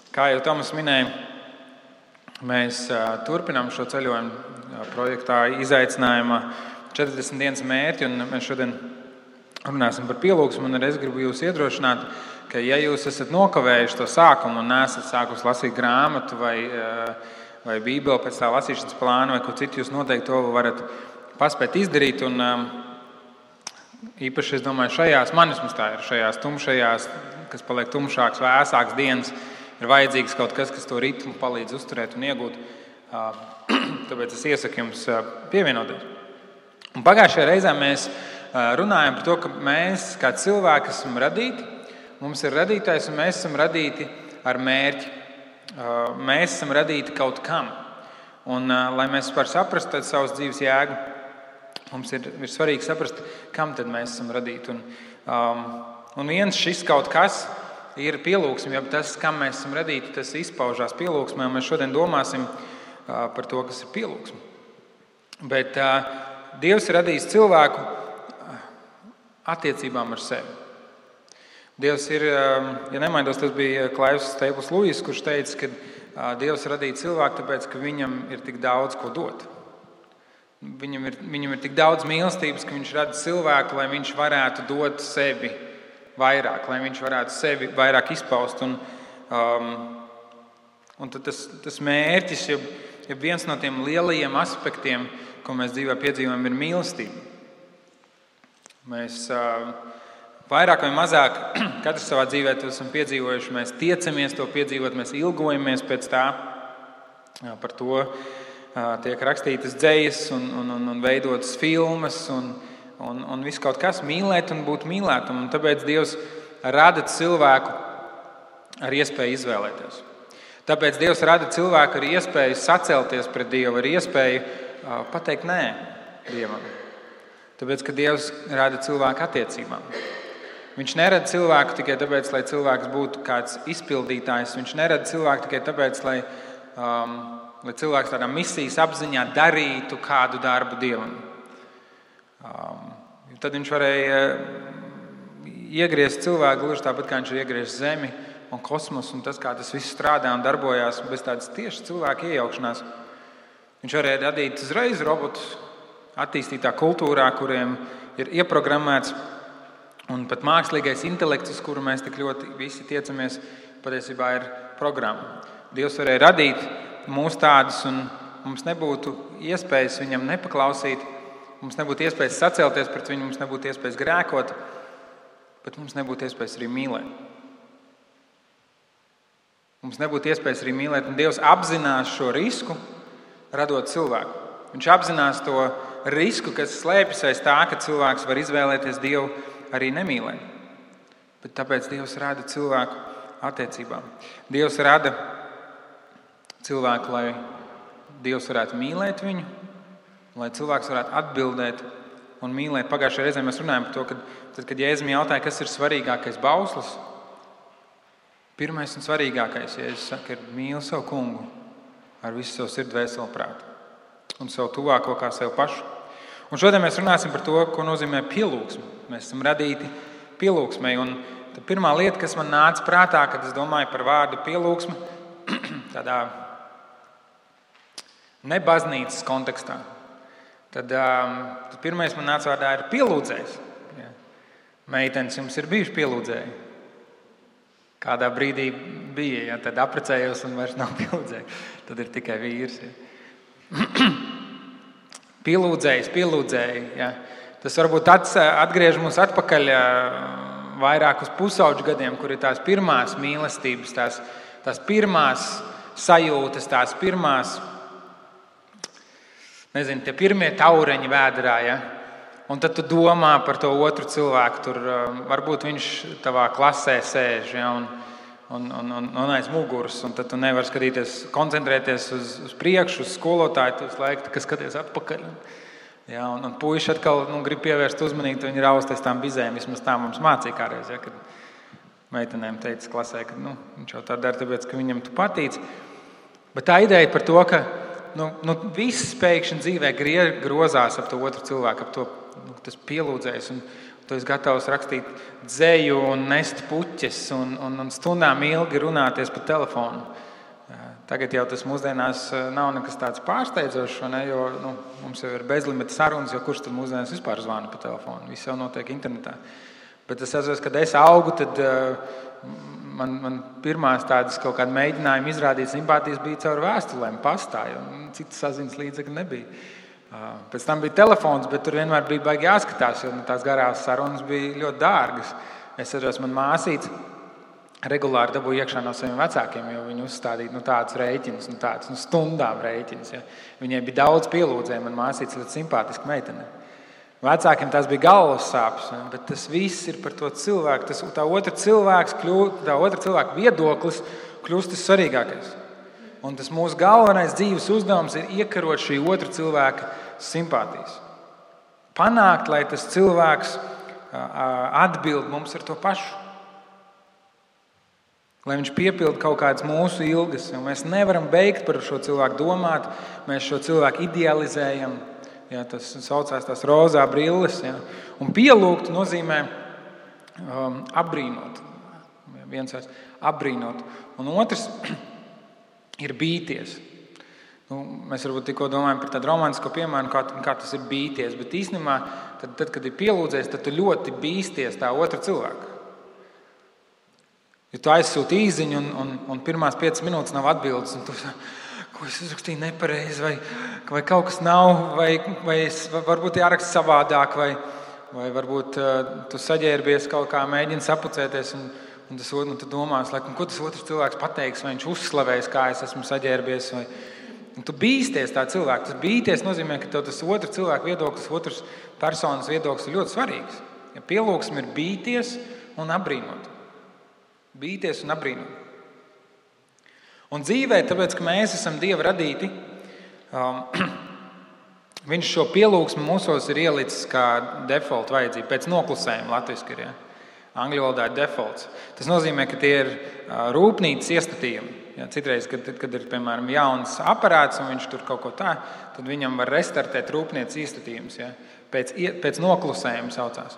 Kā jau Tomas minēja, mēs turpinām šo ceļojumu projektā izaicinājumā 40 dienas mērķi, un mēs šodien runāsim par pielūgsmu, un es gribu jūs iedrošināt, ka ja jūs esat nokavējuši to sākumu un neesat sākus lasīt grāmatu vai Bībeli pēc tā lasīšanas plāna vai ko citu, jūs noteikti to varat paspēt izdarīt, un īpaši, es domāju, šajās tumšajās, kas paliek tumšāks, vēsāks dienas, ir vajadzīgs kaut kas, kas to ritmu palīdz uzturēt un iegūt. Tāpēc es iesaku jums pievienoties. Un pagājušajā reizē mēs runājam par to, ka mēs kā cilvēki esam radīti, mums ir radītājs un mēs esam radīti ar mērķi. Mēs esam radīti kaut kam. Un, lai mēs varam saprast savas dzīves jēgu, mums ir svarīgi saprast, kam tad mēs esam radīti. Un viens šis kaut kas ir pielūgsme, jo tas, kam mēs esam radīti, tas izpaužās pielūgsmē, un mēs šodien domāsim par to, kas ir pielūgsme. Bet Dievs ir radījis cilvēku attiecībām ar sevi. Dievs ir, ja nemaidos, tas bija Klaivs Staples Lewis, kurš teica, ka Dievs radīja cilvēku, tāpēc, ka viņam ir tik daudz ko dot. Viņam ir tik daudz mīlestības, ka viņš rada cilvēku, lai viņš varētu dot sevi vairāk, lai viņš varētu sevi vairāk izpaust. Un tad tas mērķis, ja viens no tiem lielajiem aspektiem, ko mēs dzīvē piedzīvojam, ir mīlestība. Mēs vairāk vai mazāk, katrs savā dzīvē to esam piedzīvojuši, mēs tiecamies to piedzīvot, mēs ilgojamies pēc tā. Par to tiek rakstītas dzejas un veidotas filmas un viss kaut kas mīlēt un būt mīlētam. Un tāpēc Dievs rada cilvēku ar iespēju izvēlēties. Tāpēc Dievs rada cilvēku ar iespēju sacelties pret Dievu, ar iespēju pateikt nē Dievam. Tāpēc, ka Dievs rada cilvēku attiecībām. Viņš nerada cilvēku tikai tāpēc, lai cilvēks būtu kāds izpildītājs. Viņš nerada cilvēku tikai tāpēc, lai cilvēks tādā misijas apziņā darītu kādu darbu Dievam. Tad viņš varēja iegriezt cilvēku gluži tāpat, kā viņš ir iegriezis Zemi un kosmosu, un tas, kā tas viss strādā un darbojās bez tādas tieši cilvēka iejaukšanās. Viņš varēja radīt uzreiz robotus attīstītā kultūrā, kuriem ir ieprogrammēts, un pat mākslīgais intelekts, uz kuru mēs tik ļoti visi tiecamies, patiesībā ir programma. Dievs varēja radīt mūs tādus, un mums nebūtu iespējas viņam nepaklausīt, mums nebūtu iespējas sacelties pret viņu, mums nebūtu iespējas grēkot, bet mums nebūtu iespējas arī mīlēt. Mums nebūtu iespējas arī mīlēt, un Dievs apzinās šo risku, radot cilvēku. Viņš apzinās to risku, kas slēpjas aiz tā, ka cilvēks var izvēlēties Dievu arī nemīlēt. Bet tāpēc Dievs rada cilvēku attiecībām. Dievs rada cilvēku, lai Dievs varētu mīlēt viņu, lai cilvēks varētu atbildēt un mīlēt. Pagājušajā reizē mēs runājām par to, kad Jēzum jautāja, kas ir svarīgākais bauslis. Pirmais un svarīgākais, Jēzus saka, ir mīli savu kungu ar visu savu sirdi, dvēseli, prātu un savu tuvāko kā sev pašu. Un šodien mēs runāsim par to, ko nozīmē pielūgsme. Mēs esam radīti pielūgsmei. Un pirmā lieta, kas man nāca prātā, kad es domāju par vārdu pielūgsme, tādā ne baznīcas kontekstā, tad pirmais man nāca vārdā ir pielūdzējs. Ja. Meitenes, jums ir bijuši pielūdzēji? Kādā brīdī bija, ja tad apprecējos un vairs nav pielūdzēji. Tad ir tikai vīrs. Ja. Pielūdzēji. Ja. Tas varbūt atgriež mūs atpakaļ vairāk uz pusauģu gadiem, kur ir tās pirmās mīlestības, tās pirmās sajūtas, tās pirmās, tie pirmie taureņi vēderā. Ja. Un tad tu domā par to otru cilvēku. Tur varbūt viņš tavā klasē sēž, ja, un aiz muguras. Un tad tu nevari skatīties, koncentrēties uz priekšu, uz skolotāju, kas skaties atpakaļ. Ja, un puiši atkal grib pievērst uzmanību, viņi rausties tām bizēm. Vismaz tā mums mācīja kādreiz, ja, kad meitenēm teica klasē, ka viņš jau tā dara, tāpēc, ka viņam tu patīc. Bet tā ideja par to, ka viss pēkšņi dzīvē grozās ap to otru cilvēku, ap to tas pielūdzējs. Tu esi gatavs rakstīt dzeju un nest puķes un stundām ilgi runāties pa telefonu. Tagad jau tas mūsdienās nav nekas tāds pārsteidzošs, ne? Jo mums jau ir bezlimita sarunas, jo kurš tad mūsdienās vispār zvana pa telefonu? Viss jau notiek internetā. Bet es atceros, kad es augu, tad man pirmās tādas kaut kāda mēģinājuma izrādīt simpātijas bija caur vēstulēm, pastā, jo citas saziņas līdzekļi nebija. Pēc tam bija telefons, bet tur vienmēr bija baigi jāskatās, jo tās garās sarunas bija ļoti dārgas. Es atceros, man māsīca regulāri dabūja iekšā no saviem vecākiem, jo viņi uzstādīja tādus rēķinus, tādus stundām rēķinus. Ja. Viņai bija daudz pielūdzēju, man māsīca ļoti simpātiska meitene. Vecākiem tās bija galvas sāpes, bet tas viss ir par to cilvēku. Tā otra cilvēka viedoklis kļūst tas svarīgākais. Un tas mūsu galvenais dzīves uzdevums ir iekarot šī otra cilvēka simpātijas. Panākt, lai tas cilvēks atbild mums ar to pašu. Lai viņš piepilda kaut kādas mūsu ilgas. Mēs nevaram beigt par šo cilvēku domāt, mēs šo cilvēku idealizējam. Ja, tas saucās tās rozā brilles. Ja. Un pielūgt nozīmē apbrīnot. Viens vairs apbrīnot. Un otrs ir bīties. Mēs varbūt tikko domājam par tādu romantisko piemēru, kā tas ir bīties. Bet īstenībā, tad, kad ir pielūdzējis, tad tu ļoti bīsties tā otra cilvēka. Ja tu aizsūti īziņu un pirmās 5 minūtes nav atbildes, un tu ko es uzrakstīju nepareizi, vai kaut kas nav, vai varbūt jāraksta savādāk, vai varbūt tu saģērbies kaut kā, mēģini sapucēties, un tu domās, ko tas otrs cilvēks pateiks, vai viņš uzslavēs, kā es esmu saģērbies, un tu bīsties tā cilvēku. Tas bīties nozīmē, ka tev tas otrs cilvēku viedoklis, otrs personas viedoklis ir ļoti svarīgs. Ja pielūgsme ir bīties un apbrīnot. Bīties un apbrīnot. Un dzīvē, tāpēc, ka mēs esam Dieva radīti, viņš šo pielūgsmu mūsos ir ielicis kā default vajadzību, pēc noklusējuma latviski ir. Ja? Angļu valodā ir defaults. Tas nozīmē, ka tie ir rūpnīcas iestatījumi. Ja? Citreiz, kad ir, piemēram, jauns aparāts un viņš tur kaut ko tā, tad viņam var restartēt rūpnīcas iestatījums. Ja? Pēc noklusējuma saucās.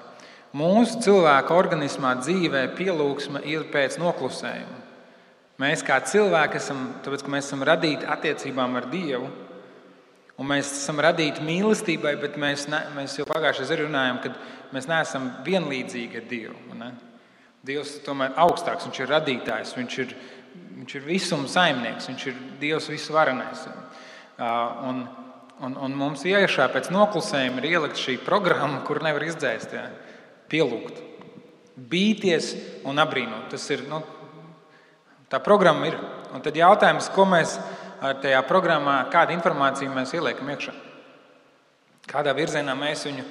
Mūsu cilvēka organismā dzīvē pielūgsme ir pēc noklusējuma. Mēs kā cilvēki esam, tāpēc, ka mēs esam radīti attiecībām ar Dievu, un mēs esam radīti mīlestībai, bet mēs jau pagājušajā arī runājām, ka mēs neesam vienlīdzīgi ar Dievu. Ne? Dievs ir tomēr augstāks, viņš ir radītājs, viņš ir visuma saimnieks, viņš ir Dievs visvarenais. Un mums iekšā pēc noklusējuma ir ielikt šī programma, kur nevar izdzēst, ja? Pielūgt, bīties un apbrīnot. Tas ir, tā programma ir. Un tad jautājums, ko mēs ar tajā programmā, kādu informāciju mēs ieliekam iekšā. Kādā virzienā mēs viņu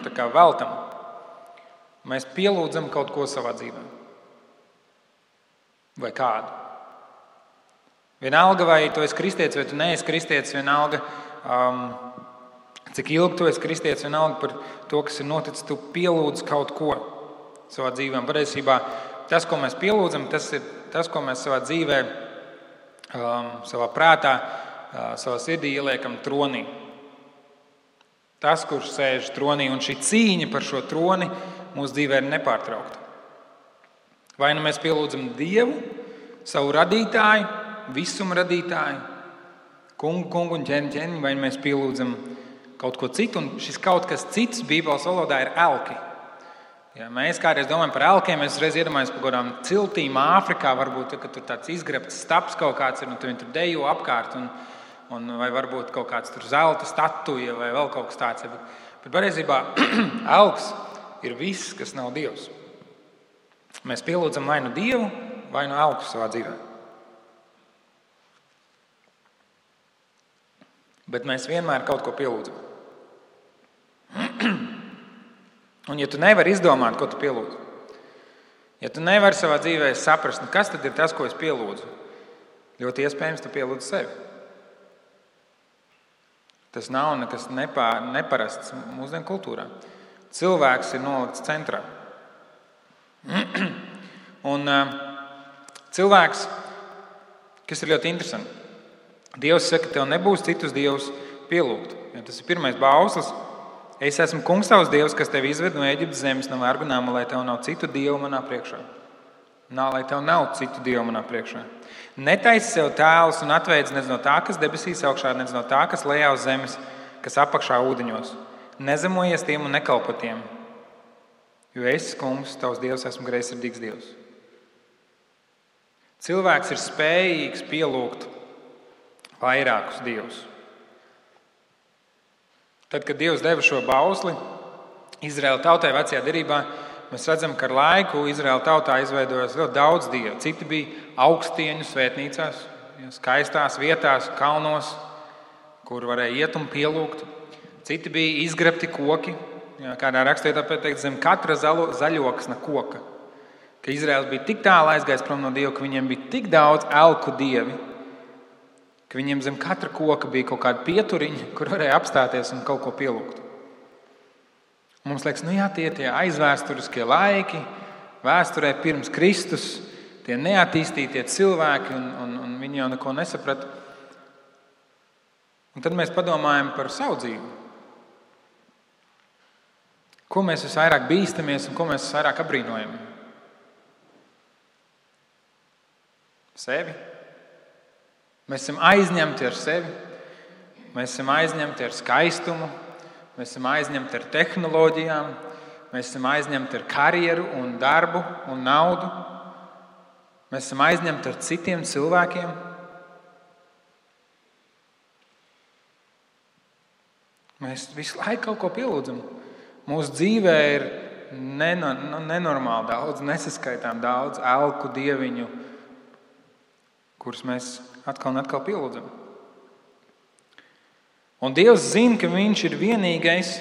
tā kā veltam. Mēs pielūdzam kaut ko savā dzīvē. Vai kādu. Vienalga, vai tu esi kristietis, vai tu neesi kristietis, vienalga, cik ilgi tu esi kristietis, vienalga par to, kas ir noticis, tu pielūdz kaut ko savā dzīvē. Patiesībā tas, ko mēs pielūdzam, tas ir tas, ko mēs savā dzīvē, savā prātā, savā sirdī ieliekam tronī. Tas, kurš sēž tronī, un šī cīņa par šo troni mūsu dzīvē ir nepārtraukta. Vai nu mēs pielūdzam Dievu, savu radītāju, visuma radītāju, kungu un ķēni, vai mēs pielūdzam kaut ko citu, un šis kaut kas cits Bībeles valodā ir elki. Ja mēs kādreiz domājam par elkiem, mēs reiz iedomājamies par kādām ciltīm Āfrikā, varbūt, ka tur tāds izgrebts staps kaut kāds ir, un viņi tur dejo apkārt, vai varbūt kaut kāds tur zelta statuja, vai vēl kaut kas tāds. Bet patiesībā elks ir viss, kas nav Dievs. Mēs pielūdzam vai nu Dievu, vai nu elku savā dzīvē. Bet mēs vienmēr kaut ko pielūdzam. Un ja tu nevari izdomāt, ko tu pielūdzi, ja tu nevari savā dzīvē saprast, kas tad ir tas, ko es pielūdzu, ļoti iespējams tu pielūdzi sevi. Tas nav nekas neparasts mūsdienu kultūrā. Cilvēks ir nolikts centrā. Un cilvēks, kas ir ļoti interesanti, Dievs saka, tev nebūs citus dievus pielūgt. Ja tas ir pirmais bauslis, Es esmu kungs tavs dievs, kas tevi izved no Ēģiptes zemes, no vergu nama, lai tev nav citu dievu manā priekšā. Lai tev nav citu dievu manā priekšā. Netaisi sev tēlus un atveids nec no tā, kas debesīs augšā, nec no tā, kas lejā uz zemes, kas apakšā ūdeņos. Nezemojies tiem un nekalpo tiem, jo es, kungs, tavs dievs, esmu greizsirdīgs dievs. Cilvēks ir spējīgs pielūgt vairākus dievus. Tad, kad Dievs deva šo bausli Izraēla tautai vecajā derībā, mēs redzam, ka ar laiku Izraēla tautā izveidojās ļoti daudz dievu. Citi bija augstieņu svētnīcās, skaistās vietās, kalnos, kur varēja iet un pielūgt. Citi bija izgrebti koki, kādā rakstvietā pateikt, zem katra zaļoksna koka. Ka Izraēls bija tik tālu aizgājis prom no Dieva, ka viņiem bija tik daudz elku dievi, ka viņiem zem katra koka bija kaut kāda pieturiņa, kur varēja apstāties un kaut ko pielūgt. Mums liekas, tie aizvēsturiskie laiki, vēsturē pirms Kristus, tie neattīstītie cilvēki, un viņi jau neko nesaprata. Un tad mēs padomājam par savu dzīvi. Ko mēs visvairāk bīstamies un ko mēs visvairāk apbrīnojam? Sevi. Mēs esam aizņemti ar sevi, mēs esam aizņemti ar skaistumu, mēs esam aizņemti ar tehnoloģijām, mēs esam aizņemti ar karjeru un darbu un naudu, mēs esam aizņemti ar citiem cilvēkiem. Mēs visu laiku kaut ko pielūdzam. Mūsu dzīvē ir nenormāli daudz, nesaskaitām daudz elku dieviņu, kurus mēs atkal un atkal pielūdzam. Un Dievs zina, ka viņš ir vienīgais,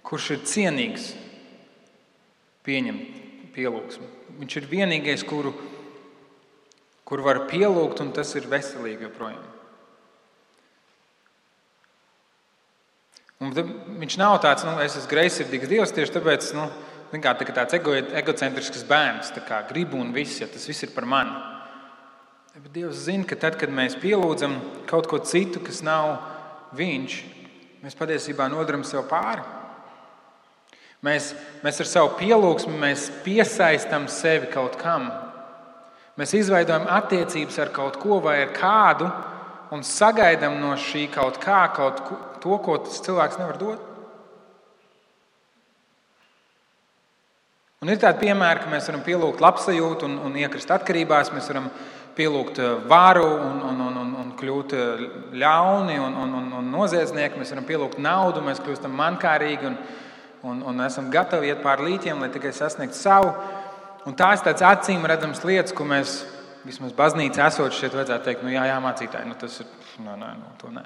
kurš ir cienīgs pieņemt pielūgsmu. Viņš ir vienīgais, kuru var pielūgt, un tas ir veselīgi joprojām. Un viņš nav tāds, es esmu greizsirdīgs Dievs, tieši tāpēc, tāds egocentrisks bērns, tā kā gribu un viss, ja tas viss ir par mani. Bet Dievs zina, ka tad, kad mēs pielūdzam kaut ko citu, kas nav viņš, mēs patiesībā nodaram sev pāri. Mēs ar savu pielūgsmi mēs piesaistam sevi kaut kam. Mēs izveidojam attiecības ar kaut ko vai ar kādu un sagaidām no šī kaut kā to, ko tas cilvēks nevar dot. Un ir tādi piemēri, ka mēs varam pielūgt labsajūtu un iekrist atkarībās, mēs varam pielūgt varu un kļūt ļauni un noziedznieki. Mēs varam pielūgt naudu, mēs kļūstam mankārīgi un esam gatavi iet pār līķiem, lai tikai sasniegtu savu. Un tās tāds acīm redzams lietas, ko mēs vismaz baznīcā esot šeit vajadzētu teikt, jā, mācītāji, tas ir, to nē.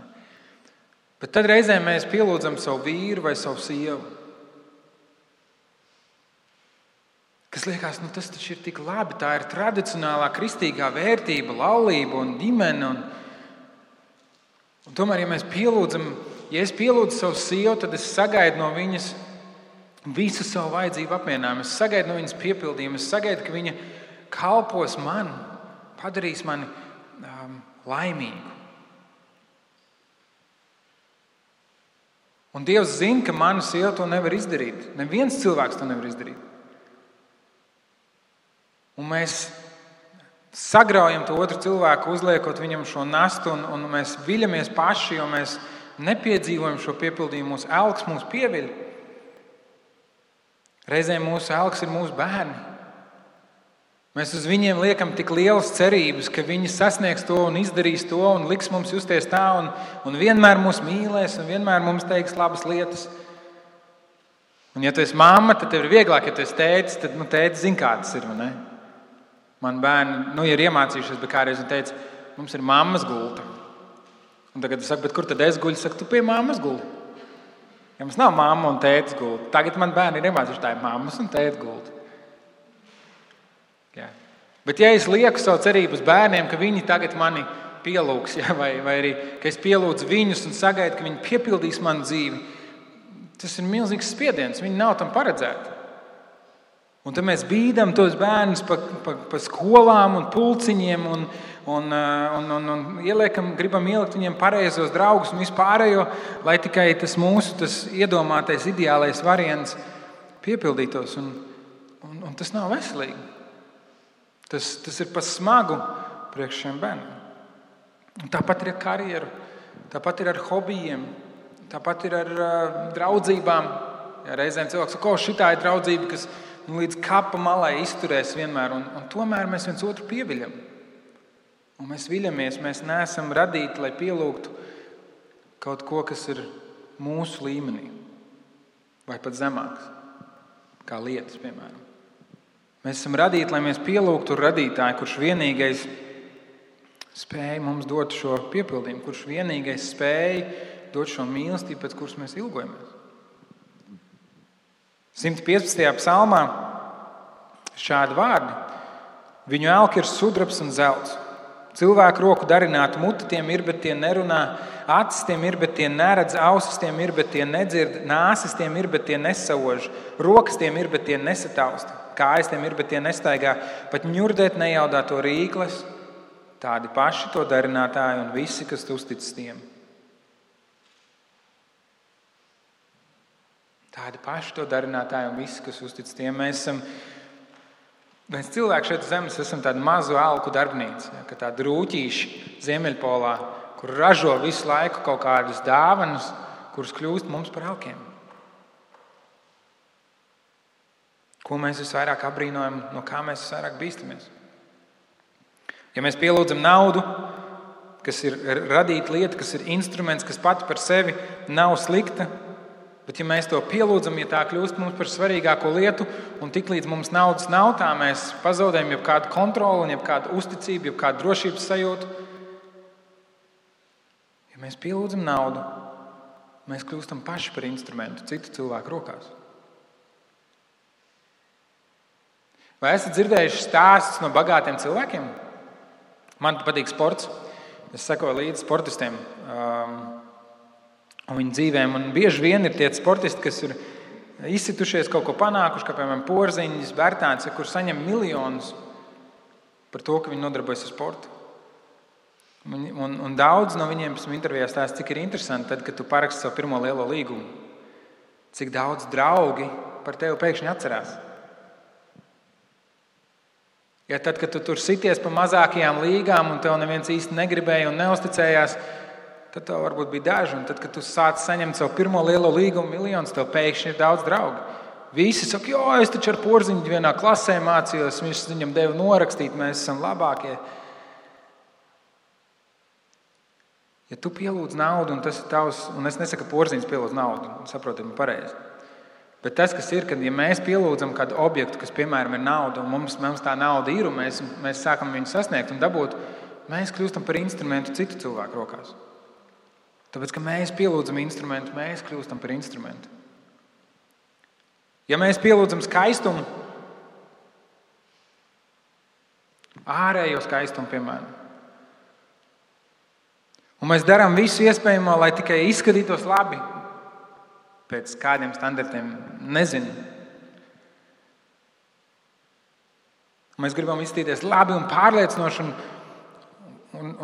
Bet tad reizēm mēs pielūdzam savu vīru vai savu sievu. Kas liekas, tas taču ir tik labi, tā ir tradicionālā kristīgā vērtība, laulība un ģimene. Un tomēr, ja es pielūdzu savu sievu, tad es sagaidu no viņas visu savu vajadzību apmierinājumu. Es sagaidu no viņas piepildījumu, es sagaidu, ka viņa kalpos man, padarīs mani laimīgu. Un Dievs zina, ka mana sieva to nevar izdarīt. Neviens cilvēks to nevar izdarīt. Un mēs sagraujam to otru cilvēku, uzliekot viņam šo nastu, un mēs viļamies paši, jo mēs nepiedzīvojam šo piepildījumu. Mūsu elks mūs pieviļ. Reizēm mūsu elks ir mūsu bērni. Mēs uz viņiem liekam tik lielas cerības, ka viņi sasniegs to un izdarīs to un liks mums justies tā un vienmēr mūs mīlēs un vienmēr mums teiks labas lietas. Un ja tu esi mamma, tad tev ir vieglāk, ja tu esi tētis, tad tētis zina, kā tas ir, vai ne? Man bērni ir iemācījušies, bet kādreiz viņi teica, mums ir mammas gulta. Un tagad es saku, bet kur tad es guļu? Saku, tu pie mammas gulti. Ja mums nav mamma un tētis gulta. Tagad man bērni ir iemācījuši, tā ir mammas un tētis gulta. Jā. Bet ja es lieku savu cerību uz bērniem, ka viņi tagad mani pielūgs, vai arī, ka es pielūdzu viņus un sagaidu, ka viņi piepildīs manu dzīvi, tas ir milzīgs spiediens. Viņi nav tam paredzēti. Un tad mēs bīdam tos bērnus pa skolām un pulciņiem un gribam ielikt viņiem pareizos draugus un vispārējo, lai tikai tas mūsu iedomātais ideālais variants piepildītos. Un tas nav veselīgi. Tas ir pa smagu priekš šiem bērniem. Un tāpat ir ar karjeru, tāpat ir ar hobijiem, tāpat ir ar draudzībām. Ja reizēm cilvēks saka, šitā ir draudzība, kas līdz kapa malai izturēs vienmēr, un tomēr mēs viens otru pieviļam. Un mēs viļamies, mēs neesam radīti, lai pielūgtu kaut ko, kas ir mūsu līmenī, vai pat zemāks, kā lietas, piemēram. Mēs esam radīti, lai mēs pielūgtu radītāju, kurš vienīgais spēja mums dot šo piepildījumu, kurš vienīgais spēja dot šo mīlestību, pēc kuras mēs ilgojamies. 115. psalmā šādi vārdi. Viņu elki ir sudrabs un zelts. Cilvēku roku darināta mute tiem ir, bet tie nerunā. Acis tiem ir, bet tie neredz. Ausis tiem ir, bet tie nedzird. Nāsis tiem ir, bet tie nesauž. Rokas tiem ir, bet tie nesatausta. Kājas tiem ir, bet tie nestaigā. Pat ņurdēt nejaudā to rīkles. Tādi paši to darinātāji un visi, kas uzticas tiem. Tādi paši to darinātāji un visi, kas uztic tiem. Mēs cilvēki šeit zemes esam tādu mazu alku darbnīcu, ja, kā tādi rūķīši Ziemeļpolā, kur ražo visu laiku kaut kādas dāvanas, kuras kļūst mums par alkiem. Ko mēs visvairāk abrīnojam, no kā mēs visvairāk bīstamies? Ja mēs pielūdzam naudu, kas ir radīta lieta, kas ir instruments, kas pati par sevi nav slikta, bet ja mēs to pielūdzam, ja tā kļūst mums par svarīgāko lietu, un tiklīdz mums naudas nav, tā mēs pazaudējam jebkādu kontroli, jebkādu uzticību, jebkādu drošības sajūtu. Ja mēs pielūdzam naudu, mēs kļūstam paši par instrumentu citu cilvēku rokās. Vai esat dzirdējuši stāstus no bagātiem cilvēkiem? Man patīk sports. Es sekoju līdzi sportistiem un viņu dzīvēm. Un bieži vien ir tie sportisti, kas ir izsitušies, kaut ko panākuši, kā piemēram Porziņš, Bērtāns, kur saņem miljonus par to, ka viņi nodarbojas ar sportu. Un daudz no viņiem pēc intervijās stāsta, cik ir interesanti, tad, kad tu paraksti savu pirmo lielo līgumu. Cik daudz draugi par tevi pēkšņi atcerās. Ja tad, kad tu tur sities pa mazākajām līgām un tev neviens īsti negribēja un neusticējās, tad tev varbūt bija daži. Un tad, kad tu sāc saņemt savu pirmo lielo līgumu miljonus, tev pēkšņi ir daudz draugu. Visi saka, es taču ar Porziņu vienā klasē mācījos, viņš viņam deva norakstīt, mēs esam labākie. Ja tu pielūdz naudu, un tas ir tavs, un es nesaku, ka Porziņš pielūdz naudu, saprotam pareizi. Bet tas, kas ir, kad ja mēs pielūdzam kādu objektu, kas, piemēram, ir nauda, un mums tā nauda ir, un mēs sākam viņu sasniegt un dabūt, mēs kļūstam par instrumentu citu cilvēku rokās. Tāpēc, ka mēs pielūdzam instrumentu, mēs kļūstam par instrumentu. Ja mēs pielūdzam skaistumu, ārējo skaistumu, piemēram, un mēs darām visu iespējamo, lai tikai izskatītos labi, pēc kādiem standartiem, nezinu. Mēs gribam izskatīties labi un pārliecinoši,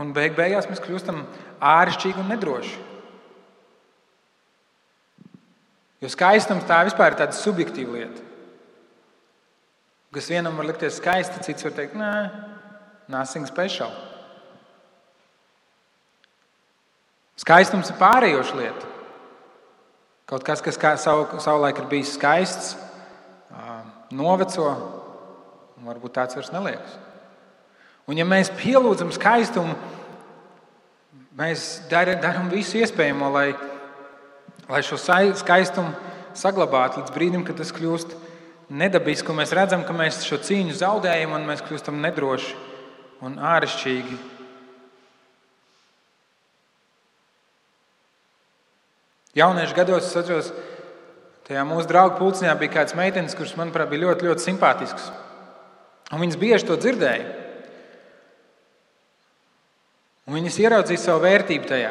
un beigās mēs kļūstam āršķirīgi un nedroši. Jo skaistums tā vispār ir tāda subjektīva lieta. Kas vienam var likties skaisti, cits var teikt, nothing special. Skaistums ir pārējoša lieta. Kaut kas savulaik ir bijis skaists, noveco, un varbūt tāds vairs neliekas. Un ja mēs pielūdzam skaistumu, mēs darām visu iespējamo, lai šo skaistumu saglabātu līdz brīdim, kad tas kļūst nedabisks, un mēs redzam, ka mēs šo cīņu zaudējam, un mēs kļūstam nedroši un āršķirīgi. Jauniešu gados, es atceros, tajā mūsu draugu pulciņā bija kāds meitenes, kuras, manuprāt, bija ļoti, ļoti simpātisks. Un viņas bieži to dzirdēja. Un viņas ieraudzīja savu vērtību tajā.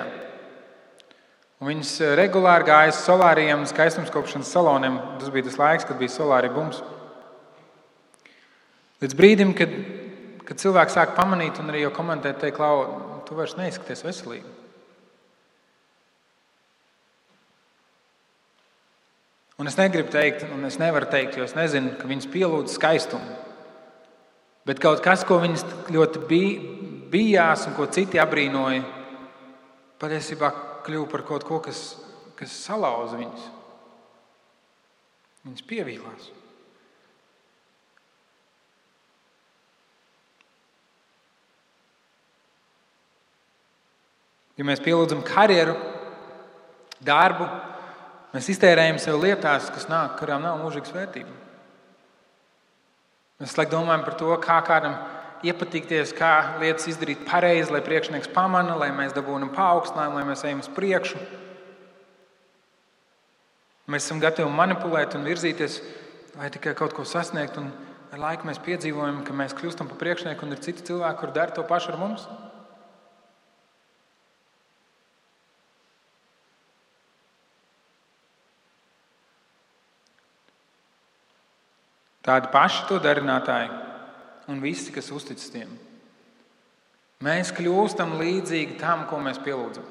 Un viņas regulāri gāja uz solāriem, skaistumskopšanas saloniem. Tas bija tas laiks, kad bija solāri bums. Līdz brīdim, kad kad cilvēki sāk pamanīt un arī jau komentēt, teikt, Klau, tu vairs neizskaties veselīgi. Un es negribu teikt, un es nevaru teikt, jo es nezinu, ka viņas pielūdz skaistumu. Bet kaut kas, ko viņas ļoti bijās un ko citi abrīnoja, patiesībā kļuva par kaut ko, kas salauza viņas. Viņas pievīlās. Ja mēs pielūdzam karjeru, darbu, mēs iztērējam sev lietās, kas nāk, kurām nav mūžīgas vērtības. Mēs domājam par to, kā kādam iepatikties, kā lietas izdarīt pareizi, lai priekšnieks pamana, lai mēs dabūnam paaugstinājumu, lai mēs ejam uz priekšu. Mēs esam gatavi manipulēt un virzīties, lai tikai kaut ko sasniegt, un ar laiku mēs piedzīvojam, ka mēs kļūstam par priekšnieku un ir citi cilvēki, kuri dara to pašu ar mums. Tādi paši to darinātāji un visi, kas uzticas tiem. Mēs kļūstam līdzīgi tam, ko mēs pielūdzam.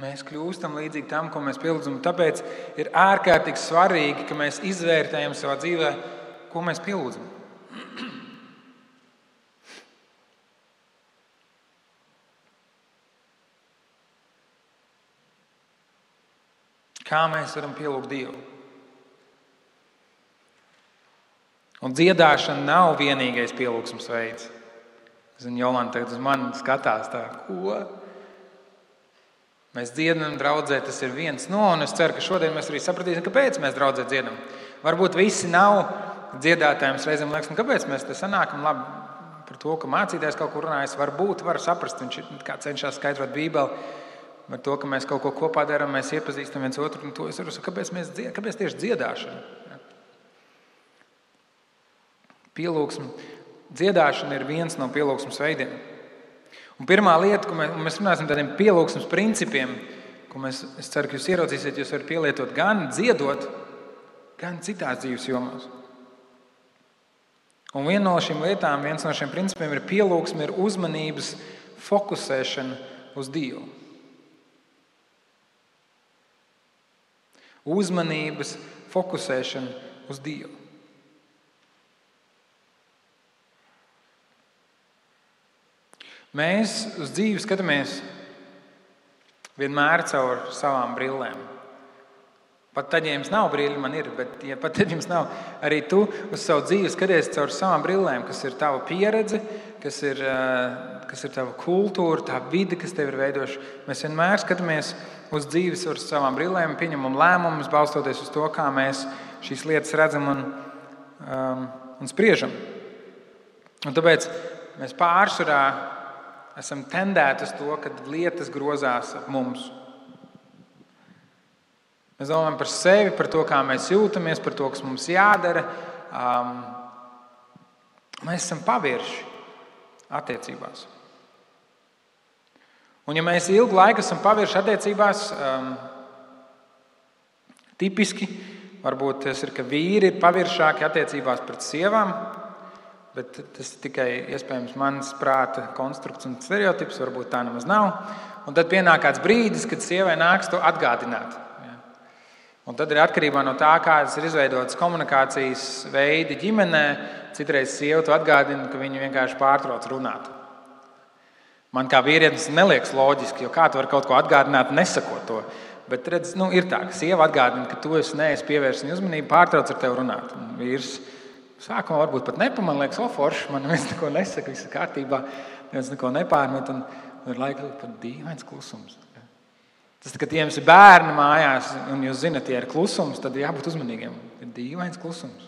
Mēs kļūstam līdzīgi tam, ko mēs pielūdzam. Tāpēc ir ārkārtīgi svarīgi, ka mēs izvērtējam savā dzīvē, ko mēs pielūdzam. Kā mēs varam pielūgt Dievu? Un dziedāšana nav vienīgais pielūgsmes veids. Zinu, Jolanta tagad uz mani skatās tā, ko? Mēs dziedam draudzē, tas ir viens no, un es ceru, ka šodien mēs arī sapratīsim, kāpēc mēs draudzē dziedam. Varbūt visi nav dziedātājiem, reizēm liekas, kāpēc mēs te sanākam labi par to, ka mācītājs kaut kur runājas. Varbūt var saprast, viņš kā cenšas skaidrot Bībeli. Ar to, ka mēs kaut ko kopā darām, mēs iepazīstam viens otru, un to es varu sakāt, kāpēc tieši dziedāšana? Pielūgsme. Dziedāšana ir viens no pielūgsmes veidiem. Un pirmā lieta, ko mēs runāsim tādiem pielūgsmes principiem, ko es ceru, ka jūs ieraudzīsiet, jūs varat pielietot gan dziedot, gan citās dzīves jomās. Un viena no šīm lietām, viens no šiem principiem ir pielūgsme, ir uzmanības fokusēšana uz Dievu. Uzmanības fokusēšana uz Dievu. Mēs uz dzīvi skatāmies vienmēr caur savām brillēm. Pat tad, ja jums nav brīļi, man ir, bet ja pat tad jums nav, arī tu uz savu dzīvi skaties caur savām brillēm, kas ir tava pieredze, kas ir tava kultūra, tā vide, kas tev ir veidoša. Mēs vienmēr skatāmies uz dzīves ar savām brillēm, pieņemam lēmumus, balstoties uz to, kā mēs šīs lietas redzam un spriežam. Un tāpēc mēs pārsvarā esam tendēti uz to, ka lietas grozās ap mums. Mēs domājam par sevi, par to, kā mēs jūtamies, par to, kas mums jādara. Mēs esam pavirši attiecībās. Un ja mēs ilgu laiku esam pavirši attiecībās, tipiski, varbūt tas ir, ka vīri ir paviršāki attiecībās pret sievām, bet tas ir tikai iespējams mans prāta konstrukts un stereotips, varbūt tā nemaz nav. Un tad pienāk kāds brīdis, kad sievai nāks to atgādināt. Un tad ir atkarībā no tā, kādas ir izveidotas komunikācijas veidi ģimenē, citreiz sieva to atgādina, ka viņa vienkārši pārtrauc runāt. Man kā vīrietis neliekas loģiski, jo kā tu vari kaut ko atgādināt, nesakot to. Bet redz, ir tā, ka sieva atgādina, ka tu neesi pievērsis viņai uzmanību, pārtrauc ar tevi runāt. Un vīrs sākumā varbūt pat nepamanā, liekas, forši, man neviens neko nesaka, viss ir kārtībā, neviens neko nepārmet, un ir laika pat dīvains klusums. Tas, kad jums ir bērni mājās, un jūs zinat, ja ir klusums, tad jābūt uzmanīgiem. Ir dīvains klusums.